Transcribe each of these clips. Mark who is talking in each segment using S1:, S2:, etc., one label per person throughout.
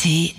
S1: Rtl.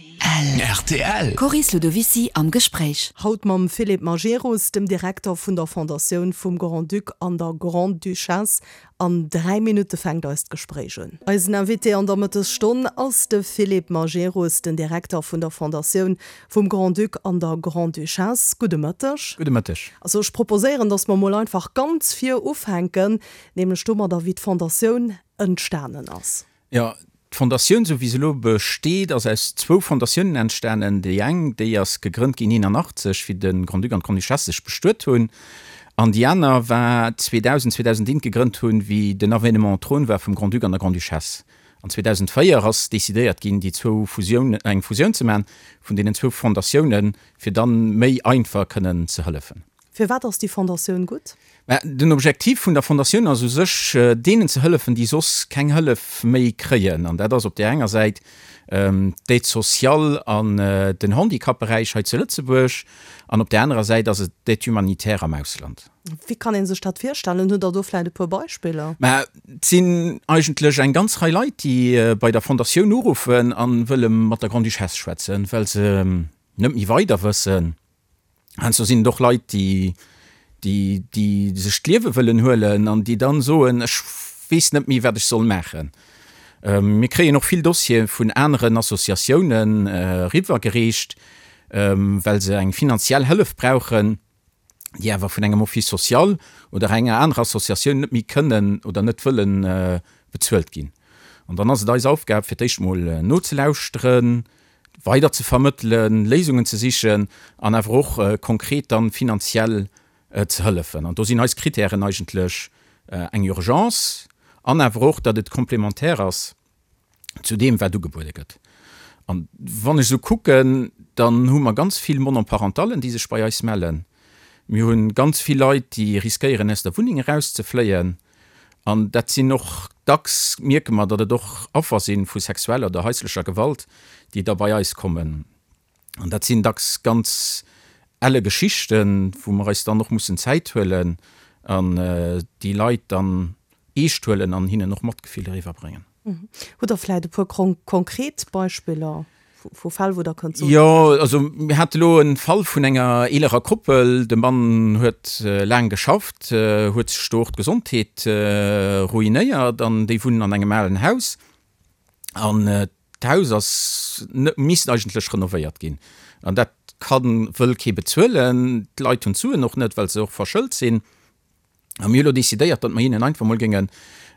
S1: Rtl. Coris Ludovicy am Gespréich.
S2: Haut mam Philippe Majerus, dem Direkter vun der Fondatioun vum Grand-Duc an der Grande-Duchesse. An 3 Minutte fänkt eist Gespréich un. Eisen Invité an der Mëttesstonn ass de Philippe Majerus, den Direkter vun der Fondatioun vum Grand-Duc an der Grande-Duchesse. Gudde Mëtteg.
S3: Gudde Mëtteg.
S2: Also ech proposéieren, dass mer mol einfach ganz vir ufänken, nämlech domadder, wéi d'Fondatioun entstanen ass.
S3: Jo, d'Fondatioun, esou wéi se elo besteet, ass aus zwou Fondatiounen entstanen. Déi eng, déi ass gegrënnt ginn 81, wéi de Grand-Duc an d'Grande-Duchesse sech bestuet hunn, an déi aner war 2000, 2001 gegrënnt hunn, wéi den Avènement au trône war vum Grand-Duc an der Grande-Duchesse. An 2004 ass decidéiert ginn, déi zwou Fusioun, eng Fusioun ze maachen vun deenen zwou Fondatiounen, fir dann méi einfach kënnen ze hëllefen.
S2: Firwat ass déi Fondatioun gutt?
S3: Mä den Objektiv vun der Fondatioun ass u sech, deenen ze hëllefen, déi soss keng Hëllef méi kréien. An dat ass op där enger Säit d'Aide sociale an den Handicap-Beräich hei zu Lëtzebuerg an op där anerer Säit ass et d'Aide humanitaire am Ausland.
S2: Wéi kann ee sech dat virstellen? Hutt Der do vläicht e puer Beispiller?
S3: Mä et sinn eigentlech eng ganz Rei Leit, déi bei der Fondatioun uruffen a wëlle mat der Grande-Duchesse schwätzen, well se net méi weider wëssen. Heiansdo sinn et och Leit, déi, déi, déi sech d'Liewe wëllen huelen an déi dann soen, ech weess net méi, wat ech soll maachen. Mir kréien och vill Dossiere vun aneren Associatiounen eriwwergereecht, well se eng finanziell Hëllef brauchen, déi awer vun engem Office social oder enger anerer Associatioun net méi kënnen oder net wëllen bezuelt ginn. An dann ass et eis Aufgab, fir d'éischt mol nozelauschteren, weider ze vermëttelen, Léisungen ze sichen an awer och konkret dann finanziell ze hëllefen. An do sinn eis Kritären eigentlech eng Urgence an awer och, datt et complémentaire ass zu deem, wat ugebuede gëtt. An wann ech esou kucken, dann hu mer ganz vill Monoparentallen, déi sech bei eis mellen. Mir hu ganz vill Leit, déi riskéieren, aus der Wunneng erauszefléien. An dat sinn och dacks, mierke mer, datt et och Affer si vu sexueller oder haislecher Gewalt, déi da bei eis kommen. An dat sinn dacks ganz elle Geschichten, wou mer eis dann och mussen Zäit huelen an déi Leit dann eescht huelen an hinnen och Matgefill eriwwerbréngen.
S2: Hutt Der vläicht e puer konkret Beispiller vu Fäll, wou Der kënnt soen.
S3: Jo, also mir hate lo e Fall vun enger eelerer Koppel. De Mann huet laang geschafft, huet sech do och d'Gesondheet ruinéiert an déi wunnen an engem alen Haus. An d'Haus ass, misst eigentlech renovéiert ginn. An dat ka wëll kee bezuelen. D'Leit hunn d'Suen och net, well se och verschëlt sinn. A mir hu lo decidéiert, datt mer hinnen einfach mol géingen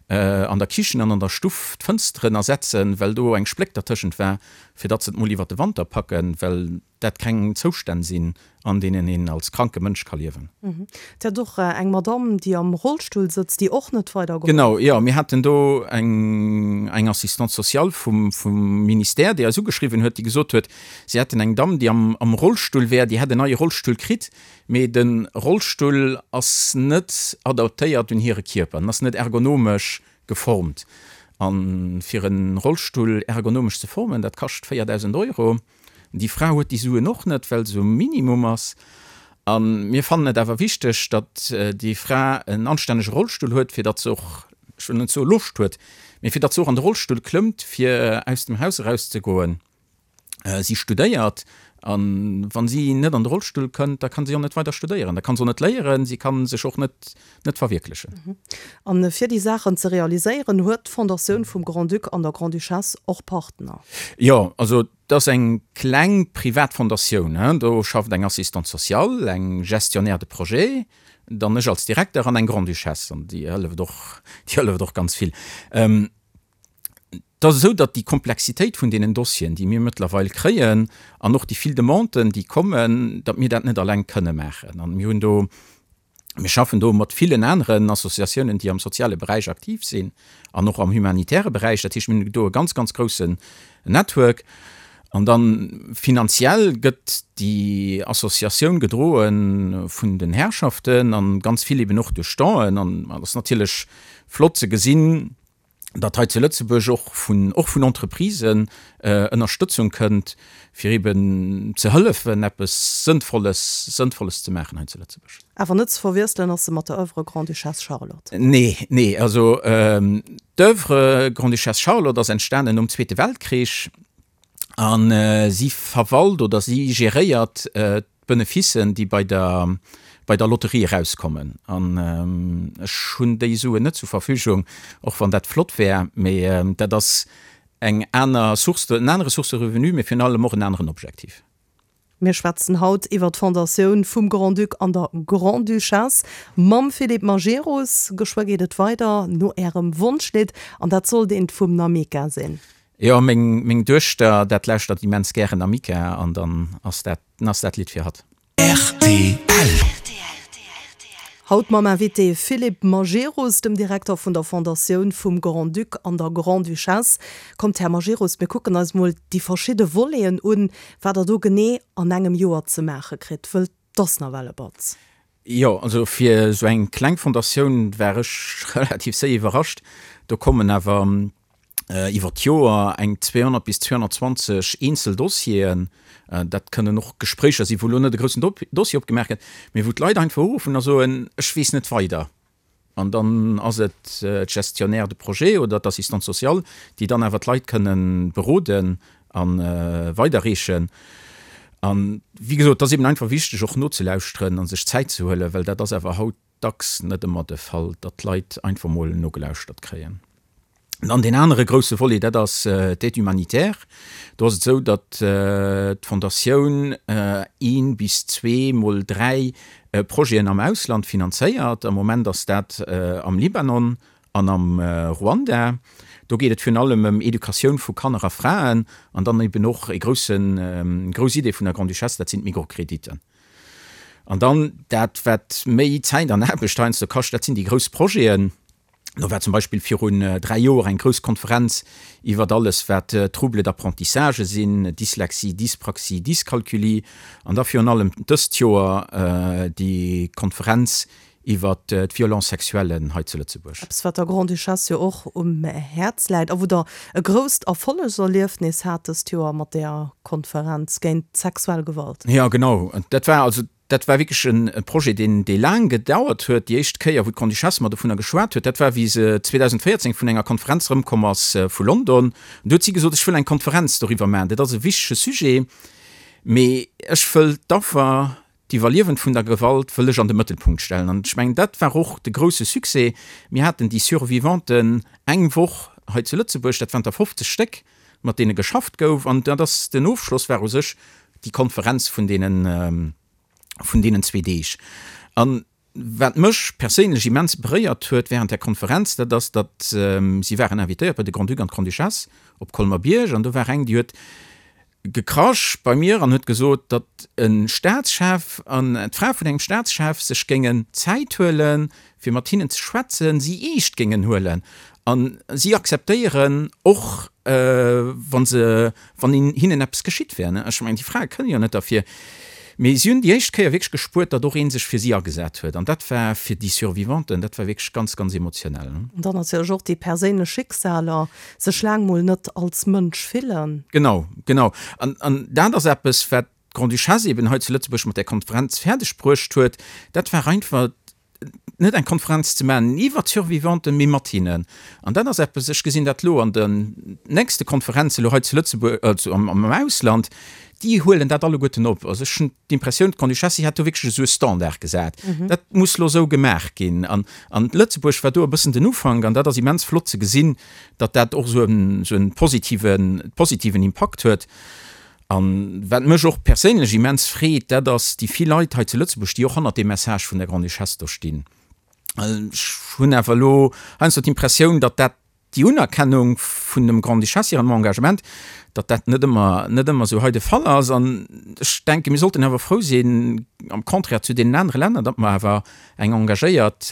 S3: an der Kichen an an der Stuff d'Fënsteren ersetzen, well do eng Spléck dertëschent war, fir datt se et mol iwwert de Wanter packen, well dat keng Zoustänn sinn, an deenen een als kranke Mënsch ka liewen.
S2: Dir hat och eng Madamm, déi am Rollstull sëtzt, déi och net weider gehollef.
S3: Genau, jo. Mir haten do eng, eng Assistante sociale vum, vum Ministère, déi eis ugeschriwwen huet, déi gesot huet, si hätten eng Damm, déi am, am Rollstull wär, déi hätt en neie Rollstull kritt, Mee de Rollstull ass net adaptéiert un hire Kierper, en ass net ergonomesch geformt. A fir e Rollstull ergonomesch ze formen, dat kascht 4.000 Euro. Déi Fra huet déi Suen och net, well se um Minimum ass. A mir fannen et awer wichteg, datt déi Fra en anstännege Rollstull huet, fir datt se och, ech wëll net soe Loscht huet, mee fir datt se och an de Rollstull klëmmt, fir aus dem Haus erauszegoen. Si studéiert an wa si net an de Rollstull kënnt, da kann si och net weider studéieren, da kann se och net léieren, si kann sech och net net verwierklechen.
S2: An fir déi Saachen ze realiséieren, huet d'Fondatioun vum Grand-Duc an der Grande-Duchesse och Partner?
S3: Jo, also et ass eng kleng privat Fondatioun. Do schafft eng Assistante sociale, eng Gestionnaire de projet, dann ech als Direkter an eng Grande-Duchesse an déi hëlleft och, déi hëlleft och ganz vill. Et ass esou, datt déi Komplexitéit vun deenen Dossieren, déi mir mëttlerweil kréien, an och déi vill Demanden, déi kommen, datt mir dat net alleng kënne maachen. An mir hunn do, mir schaffen do mat villen aneren Associatiounen, déi am soziale Beräich aktiv sinn an och am humanitäre Beräich. Dat heescht, mir hunn do e ganz, ganz groussen Network. An dann finanziell gëtt déi Associatioun gedroe vun den Herrschaften an ganz vill eben och duerch Donen. An et ass natierlech flott ze gesinn, datt hei zu Lëtzebuerg och vun, och vun Entreprisen Ënnerstëtzung kënnt, fir eben ze hëllefen, eppes Sënnvolles, Sënnvolles ze maachen hei zu Lëtzebuerg.
S2: Awer net ze verwiesselen ass se mat der Oeuvre Grande-Duchesse Charlotte.
S3: Nee, nee, also d'Oeuvre Grande-Duchesse Charlotte ass entstanen nom Zweete Weltkrich. A si verwalt oder si geréiert d'Beneficen, déi bei der, bei der Lotterie erauskommen. An ech hunn déi Suen net zur Verfügung, och wann dat flott wär. Mee dat ass eng aner Source de, en anere Source de revenu, mee virun allem och en aneren Objektiv.
S2: Mir schwätzen haut iwwer d'Fondatioun vum Grand-Duc an der Grande-Duchesse mam Philippe Majerus. Geschwë geet et weider no Ärem Wonschlidd an dat sollt eent vum Namika sinn.
S3: Jo, meng meng Duechter, dat lauschtert immens gären Namika an dann ass dat ass dat Lidd fir hatt. Rtl.
S2: Haut mam Invité Philippe Majerus, dem Direkter vun der Fondatioun vum Grand-Duc an der Grande-Duchesse. Kommt, Här Majerus, mir kucken eis mol déi verschidde Voleten un, wat Der do genee an engem Joer ze maache kritt, wëll 't ass nawell e Batz.
S3: Jo, also fir esou eng kleng Fondatioun war ech relativ séier iwwerrascht. Do kommen awer iwwer d'Joer eng 200 bis 220 eenzel Dossieren. Dat kënnen och Gespréicher sinn, wou elo net e groussen Dossier opgemaach gëtt, mee wou d'Leit einfach uruffen a soen, ech weess net weider. An dann ass et d'Gestionnaire de projet oder d'Assistante sociale, déi dann awer d'Leit kënnen beroden a weiderreechen. An, wéi gesot, et ass eben einfach wichteg, och nozelauschteren a sech Zäit ze huelen, well dat ass awer haut dacks net ëmmer de Fall, datt d'Leit einfach mol nogelauschtert kréien. Dann deen anere grousse Volet, dat ass d'Aide humanitaire. Do ass et esou, datt d'Fondatioun een bis zwee, mol dräi Projeten am Ausland finanzéiert. Am Moment ass dat am Libanon an am Ruanda. Do geet et virun allem ëm Educatioun vu Kanner a Fraen an dann eben och e groussen, grouss Idee vun der Grande-Duchesse, dat sinn d'Mikrokrediten. An dann dat, wat méi Zäit an Aarbecht heiansdo kascht, dat sinn déi grouss Projeten. Do war zum Beispill virun 3 Joer eng grouss Konferenz iwwert alles, wat Troubles d'apprentissage sinn, Dyslexie, Dyspraxie, Dyscalculie. An da virun allem dëst Joer déi Konferenz iwwert d'Violence sexuelle hei zu Lëtzebuerg.
S2: Eppes, wat der Grande-Duchesse jo och um Häerz läit a wou Der e grousst Erfollegserliefnis hat dëst Joer mat där Konferenz géint sexuell Gewalt.
S3: Jo, genau. Dat war also Dat war wierklech e Projet, deen, dee laang gedauert huet. Déi éischt Kéier, wou d'Grande-Duchesse mer dovunner geschwat huet, dat war, wéi se 2014 vun enger Konferenz erëmkomm ass vu London. An du huet si gesot, Ech wëll eng Konferenz doriwwer maachen. Dat ass e wichtege Sujet, mee ech wëll d'Affer, d'Iwwerliewend vun der Gewalt wëll ech an de Mëttelpunkt stellen. An ech mengen, dat war och de grouse Succès. Mir haten déi Survivanten eng Woch hei zu Lëtzebuerg, dat waren der 50 Stéck, mat deene geschafft gouf. An dat ass, den Ofschloss war u sech déi Konferenz vun deenen, vun deenen zwee Deeg. An wat mech perséinlech immens beréiert huet während där Konferenz, dat ass, datt si waren invitéiert bei de Grand-Duc an d'Grande-Duchesse op Colmer-Bierg an do war eng, déi huet gekrasch bei mir an huet gesot, datt e Staatschef an d'Fra vun engem Staatschef sech géingen Zäit huelen, fir mat hinnen ze schwätzen, si eescht géingen huelen a si akzeptéieren, och wa se, wann hinnen eppes geschitt wär. Ech mengen, déi Frae kënne jo net derfir, mee si hunn déi éischt Kéier wierklech gespuert, datt och ee sech fir si agesat huet an dat war fir déi Survivanten, dat war wierklech ganz, ganz emotionell.
S2: An dann natierlech och déi perséinlech Schicksaler, sech laang mol net als Mënsch fillen.
S3: Genau, genau. An dat ass eppes, wat d'Grande-Duchesse eben hei zu Lëtzebuerg mat där Konferenz fäerdeg bruecht huet, dat war einfach net eng Konferenz ze maachen iwwer d'Survivanten, mee mat hinnen. An dat ass eppes, ech gesinn dat elo an den nächste Konferenzen elo hei zu Lëtzebuerg, also am Ausland, déi huelen dat alleguerten op. Also ech hunn d'Impressioun, d'Grande-Duchesse, si hätt do wierklech esou e Standard gesat, dat muss elo esou gemaach ginn. An Lëtzebuerg war do e bëssen den Ufank an dat ass immens flott ze gesinn, datt dat och esou e positiven, positiven Impakt huet. An wat mech och perséinlech immens freet, dat ass déi vill Leit hei zu Lëtzebuerg, déi och hannert deem Message vun der Grande-Duchesse do stinn. Ech hunn awer elo heiansdo d'Impressioun, datt dat, déi Unerkennung vun dem Grande-Duchesse hirem Engagement, datt dat net ëmmer, net ëmmer esou hei de Fall ass. An ech denken, mir sollten awer frou sinn, am Contraire zu deenen anere Länner, datt mer awer eng engagéiert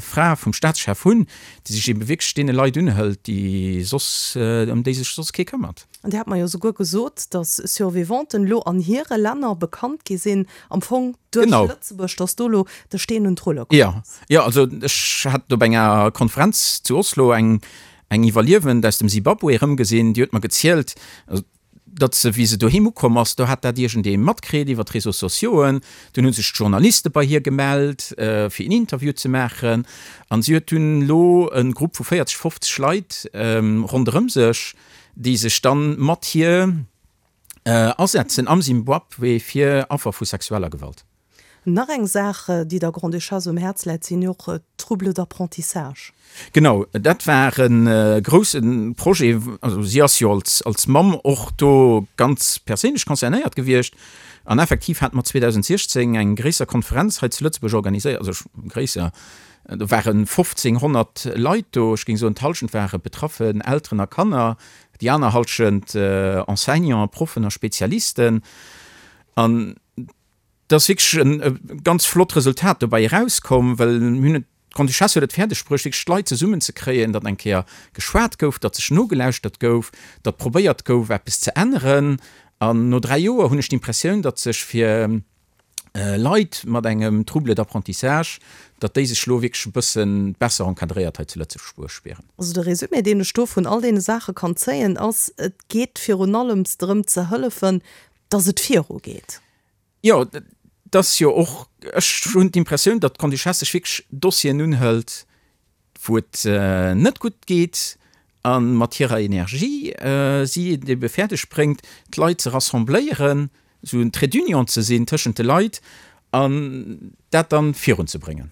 S3: Fra vum Staatschef hunn, déi sech ebe wierklech deene Leit unhëlt, déi soss, ëm déi sech soss kee këmmert.
S2: An Dir hat mer jo souguer gesot, datt Survivanten elo an hire Länner bekannt gi sinn, am Fong duerch Lëtzebuerg, datt do elo de Steen un d'Rulle
S3: komm ass. Jo, jo, also ech hat op enger Konferenz zu Oslo eng, eng Iwwerliewend aus dem Simbabwe erëmgesinn, déi huet mer gezielt, datt se, wéi se doheem ukomm ass, do hat dat iergendee matkritt iwwer d'Réseaux sociauxen, dunn hu sech d'Journaliste bei hir gemellt, fir een Interview ze maachen, an si huet dunn elo e Grupp vu 40, 50 Leit ronderëm sech, déi sech dann mat hir. Asetzen am Simbabwe fir Affer vu sexueller Gewalt.
S2: Nach eng Saach, déi der Grande-Duchesse um Häerz läit, sinn jo och d'Troubles d'apprentissage.
S3: Genau, dat war e grousse Projet. Also si ass jo als, als Mamm och do ganz perséinlech concernéiert gewiescht. An effektiv hate mer 2016 eng gréisser Konferenz hei zu Lëtzebuerg organiséiert, also gréisser, do ware 1.500 Leit do, ech géing soen d'Hallschent ware betraffen Elteren a Kanner, déi aner Hallschent Enseignanten, Proffen a Spezialisten. An et ass wierklech e ganz flott Resultat dobäi erauskomm, well mir hunn et, d'Grande-Duchesse huet et fäerdeg bruecht, wierklech d'Leit zesummenzekréien, datt eng Kéier geschwat gouf, datt sech nogelauschtert gouf, datt probéiert gouf, eppes ze änneren. An no 3 Joer hunn ech d'Impressioun, datt sech fir Leit mat engem Trouble d'apprentissage, datt déi sech elo wierklech e bësse besser encadréiert hei zu Lëtzebuerg spieren.
S2: Also de Résumé, deen ech do vun all deene Saache kann zéien, ass, Et geet virun allems drëm ze hëllefen, datt et virugeet.
S3: Jo, et ass jo och, ech hunn d'Impressioun, datt d'Grande-Duchesse sech wierklech Dossieren unhëlt, wou et net gutt geet, a mat hirer Energie si et ebe fäerdeg bréngt, d'Leit ze rassembléieren, esou en Trait d'union ze sinn tëschent de Leit an dat dann virunzebréngen.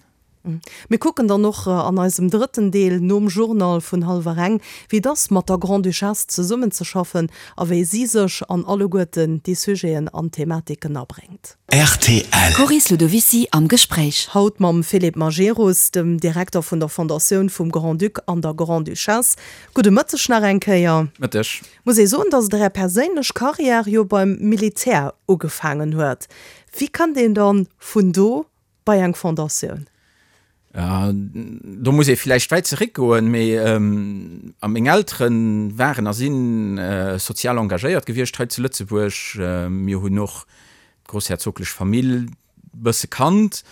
S2: Mir kucken dann och an eisem drëtten Deel nom Journal vun hallwer eng, wéi et ass, mat der Grande-Duchesse zesummenzeschaffen a wéi si sech an alleguerten déi Sujeten an Thematiken abréngt.
S1: Rtl. Coris Ludovicy am Gespréich.
S2: Haut mam Philippe Majerus, dem Direkter vun der Fondatioun vum Grand-Duc an der Grande-Duchesse. Gudde Mëtteg nach eng Kéier.
S3: Mëtteg.
S2: Muss ee soen, dass et Är perséinlech Karriär jo beim Militär ugefaangen huet. Wéi kënnt een dann vun do bei eng Fondatioun?
S3: Do muss ee villäicht wäit zeréckgoen, mee a meng Eltere waren a si sozial engagéiert gewiescht hei zu Lëtzebuerg. Mir hunn och d'groussherzoglech Famill bësse kannt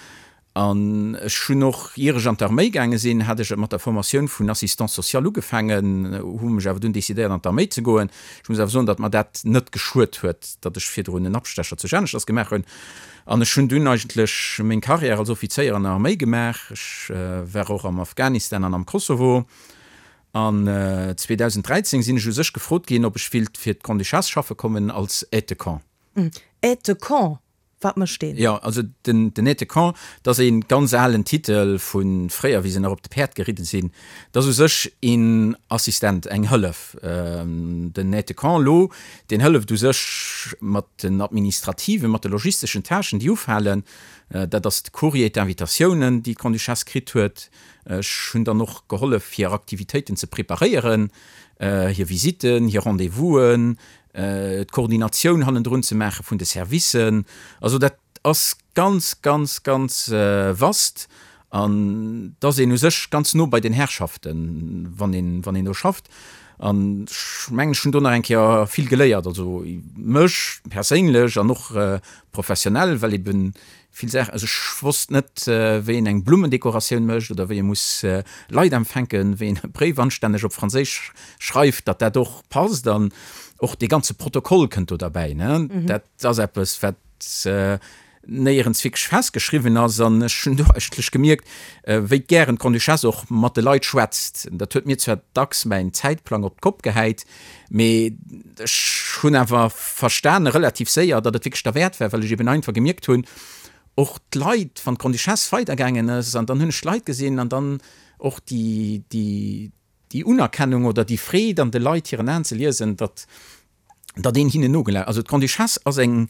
S3: an ech hunn och, ier ech an d'Arméi gaange sinn, hat ech mat der Formatioun vun Assistant social ugefaangen, hu mech awer dunn decidéiert an d'Arméi ze goen. Ech muss awer soen, datt mer dat net geschuet huet, datt ech virdrun en Abstecher zu Janeschters gemaach hunn. An ech hunn dunn eigentlech meng Carrière als Offizéier an der Arméi gemaach. Ech war och am Afghanistan an am Kosovo. An 2013 sinn ech u sech gefrot ginn, ob ech willt fir d'Grande-Duchesse schaffe kommen als Aide de camp.
S2: Aide de camp, wat mécht deen?
S3: Jo, also den Aide de camp, dat ass ee ganz alen Titel vu fréier, wéi se nach op de Päerd geridde sinn. Dat ass u sech een Assistent, eng Hëllef. Den Aide de camp elo, deen hëlleft u sech mat den administrativen, mat de logisteschen Tâchen, déi ufalen. Dat ass de Courrier, d'Invitatiounen, déi d'Grande-Duchesse kritt huet. Ech hunn dann och gehollef, hir Aktivitéiten ze preparéieren, hir Visitten, hir Rendez-vousen, d'Koordinatioun hannendrun ze maache vun de Servicen. Also dat ass ganz, ganz, ganz vast an et ass een u sech ganz no bei den Herrschaften, wann een, wann een do schafft. An ech mengen, ech hunn do nach eng Kéier vill geléiert, also mech perséinlech an och professionell, well ebe vill Saachen, also ech wosst net, wéi een eng Blummendekoratioun mécht oder wéi ee muss Leit empfänken, wéi een e Bréif anstänneg op Franséisch schreift, datt dat och passt an och dee ganze Protokoll kënnt do derbäi, ne. Dat ass eppes, wat néierens wierklech festgeschriwwen ass. An ech hunn do eigentlech gemierkt, wéi gären d'Grande-Duchesse och mat de Leit schwätzt. Dat huet mir zwar dacks mäin Zäitplang op d'Kopp gehäit, mee ech hunn awer verstane relativ séier, datt et wierklech derwäert war, well ech eben einfach gemierkt hunn, och d'Leit, wann d'Grande-Duchesse weidergaangen ass, an dann hunn ech d'Leit gesinn an dann och déi, déi, déi Unerkennung oder déi Freed an de Leit hiren Aen ze liesen, datt, datt een hinnen nogelauschtert. Also d'Grande-Duchesse ass eng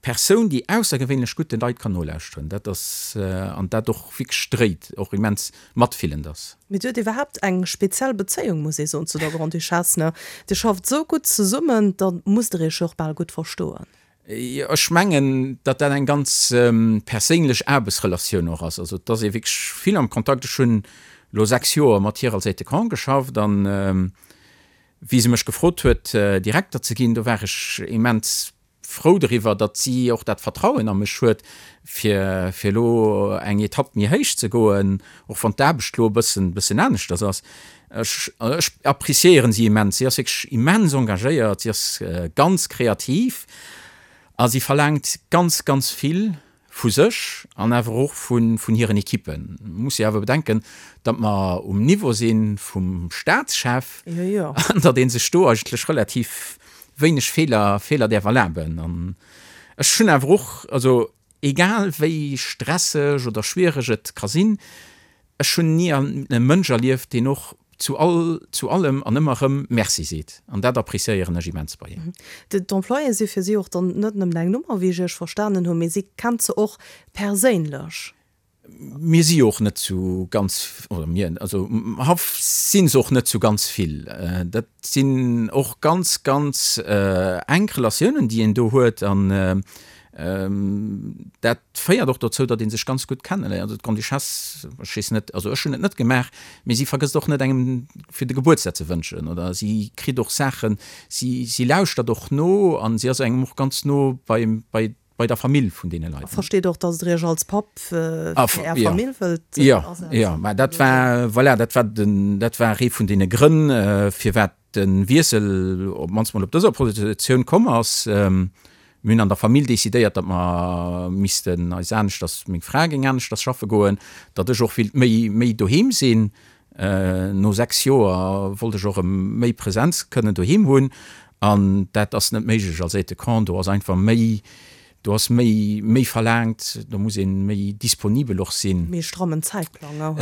S3: Persoun, déi aussergewéinlech gutt de Leit kann nolauschteren. Dat ass, an dat och wierklech dréit, och immens matfillend ass.
S2: Mee Dir hutt iwwerhaapt eng speziell Bezéiung, muss ee soen, zu der Grande-Duchesse, ne? Dir schafft esou gutt zesummen, da musst Der Iech jo och bal gutt verstoen.
S3: Jo, ech mengen, datt dat eng ganz perséinlech Aarbechtsrelatioun och ass. Also et ass ee wierklech vill am Kontakt. Ech hunn elo 6 Joer mat hir als Aide de camp geschafft an, Wéi se mech gefrot huet, Direkter ze ginn, do war ech immens frou doriwwer, datt si och dat Vertrauen a mech huet, fir fir elo eng Etapp méi héich ze goen, och wann d'Aarbecht elo e bëssen bëssen aneschters ass. Ech ech appreciéieren si immens. Si ass wierklech immens engagéiert, si ass ganz kreativ a si verlaangt ganz, ganz vill vu sech an awer och vun hiren Ekippen. Muss ee awer bedenken, datt mer um Niveau si vum Staatschef an datt ee sech do eigentlech relativ wéineg Feeler, Feeler däerf erlaben. An ech hunn awer och, also egal wéi stresseg oder schwiereg et ka sinn, ech hunn ni e Mënsch erlieft, deen och zu all, zu allem an ëmmer erëm Merci seet. An dat appreciéieren ech immens bei him.
S2: D'Employéë si fir si och dann net nëmmen eng Nummer, wéi ech Iech verstanen hunn, mee si kennt se och perséinlech.
S3: Mir si jo och net zu ganz, oder mir, also am Haff si se och net zu ganz vill. Dat sinn och ganz, ganz enk Relatiounen, déi een do huet. An dat féiert och dozou, datt ee sech ganz gutt kenneléiert. Also d'Grande-Duchesse, ech weess net, also ech hunn et net gemaach, mee si vergësst och net engem fir de Gebuertsdag ze wënschen oder si kritt och Saachen, si, si lauschtert och no an si ass engem och ganz no bei, bei bei der Famill vun deene Leit.
S2: A versteet och, datt Der Iech als Papp fir Är Famill wëllt
S3: asetzen. Jo, jo, mä dat war, voilà, dat war den, dat war ee vun deene Grënn, firwat de Wiessel op d'mannst mol op dëser Positioun komm ass. Mir hunn an der Famill decidéiert, datt mer missten eis aneschters, meng Fra géing aneschters schaffe goen, datt ech och wéilt méi, méi doheem sinn. No 6 Joer wollt ech och erëm méi Präsenz kënnen doheem hunn an dat ass net méiglech als Aide de camp. Do ass einfach méi, do ass méi, méi verlaangt, do muss ee méi disponibel och sinn.
S2: Méi strammen Zäitplang
S3: och.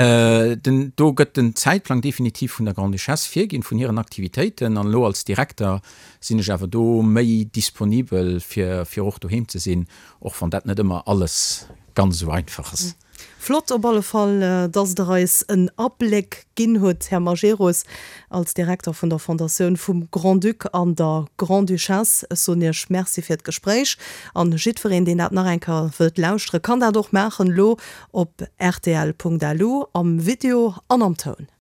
S3: Den, do gëtt den Zäitplang definitiv vun der Grande-Duchesse virginn, vun hiren Aktivitéiten an elo als Direkter sinn ech awer do méi disponibel fir, fir och doheem ze sinn, och wann dat net ëmmer alles ganz esou einfach ass.
S2: Flott op alle Fall, dass Der eis en Abléck ginn hutt, Här Majerus, als Direkter vun der Fondatioun vum Grand-Duc an der Grande-Duchesse. Ech soen Iech Merci fir d'Gespréich an jiddwereen, deen dat nach eng Kéier wëllt lauschteren, kann dat och maachen elo op rtl.lu am Video an am Toun.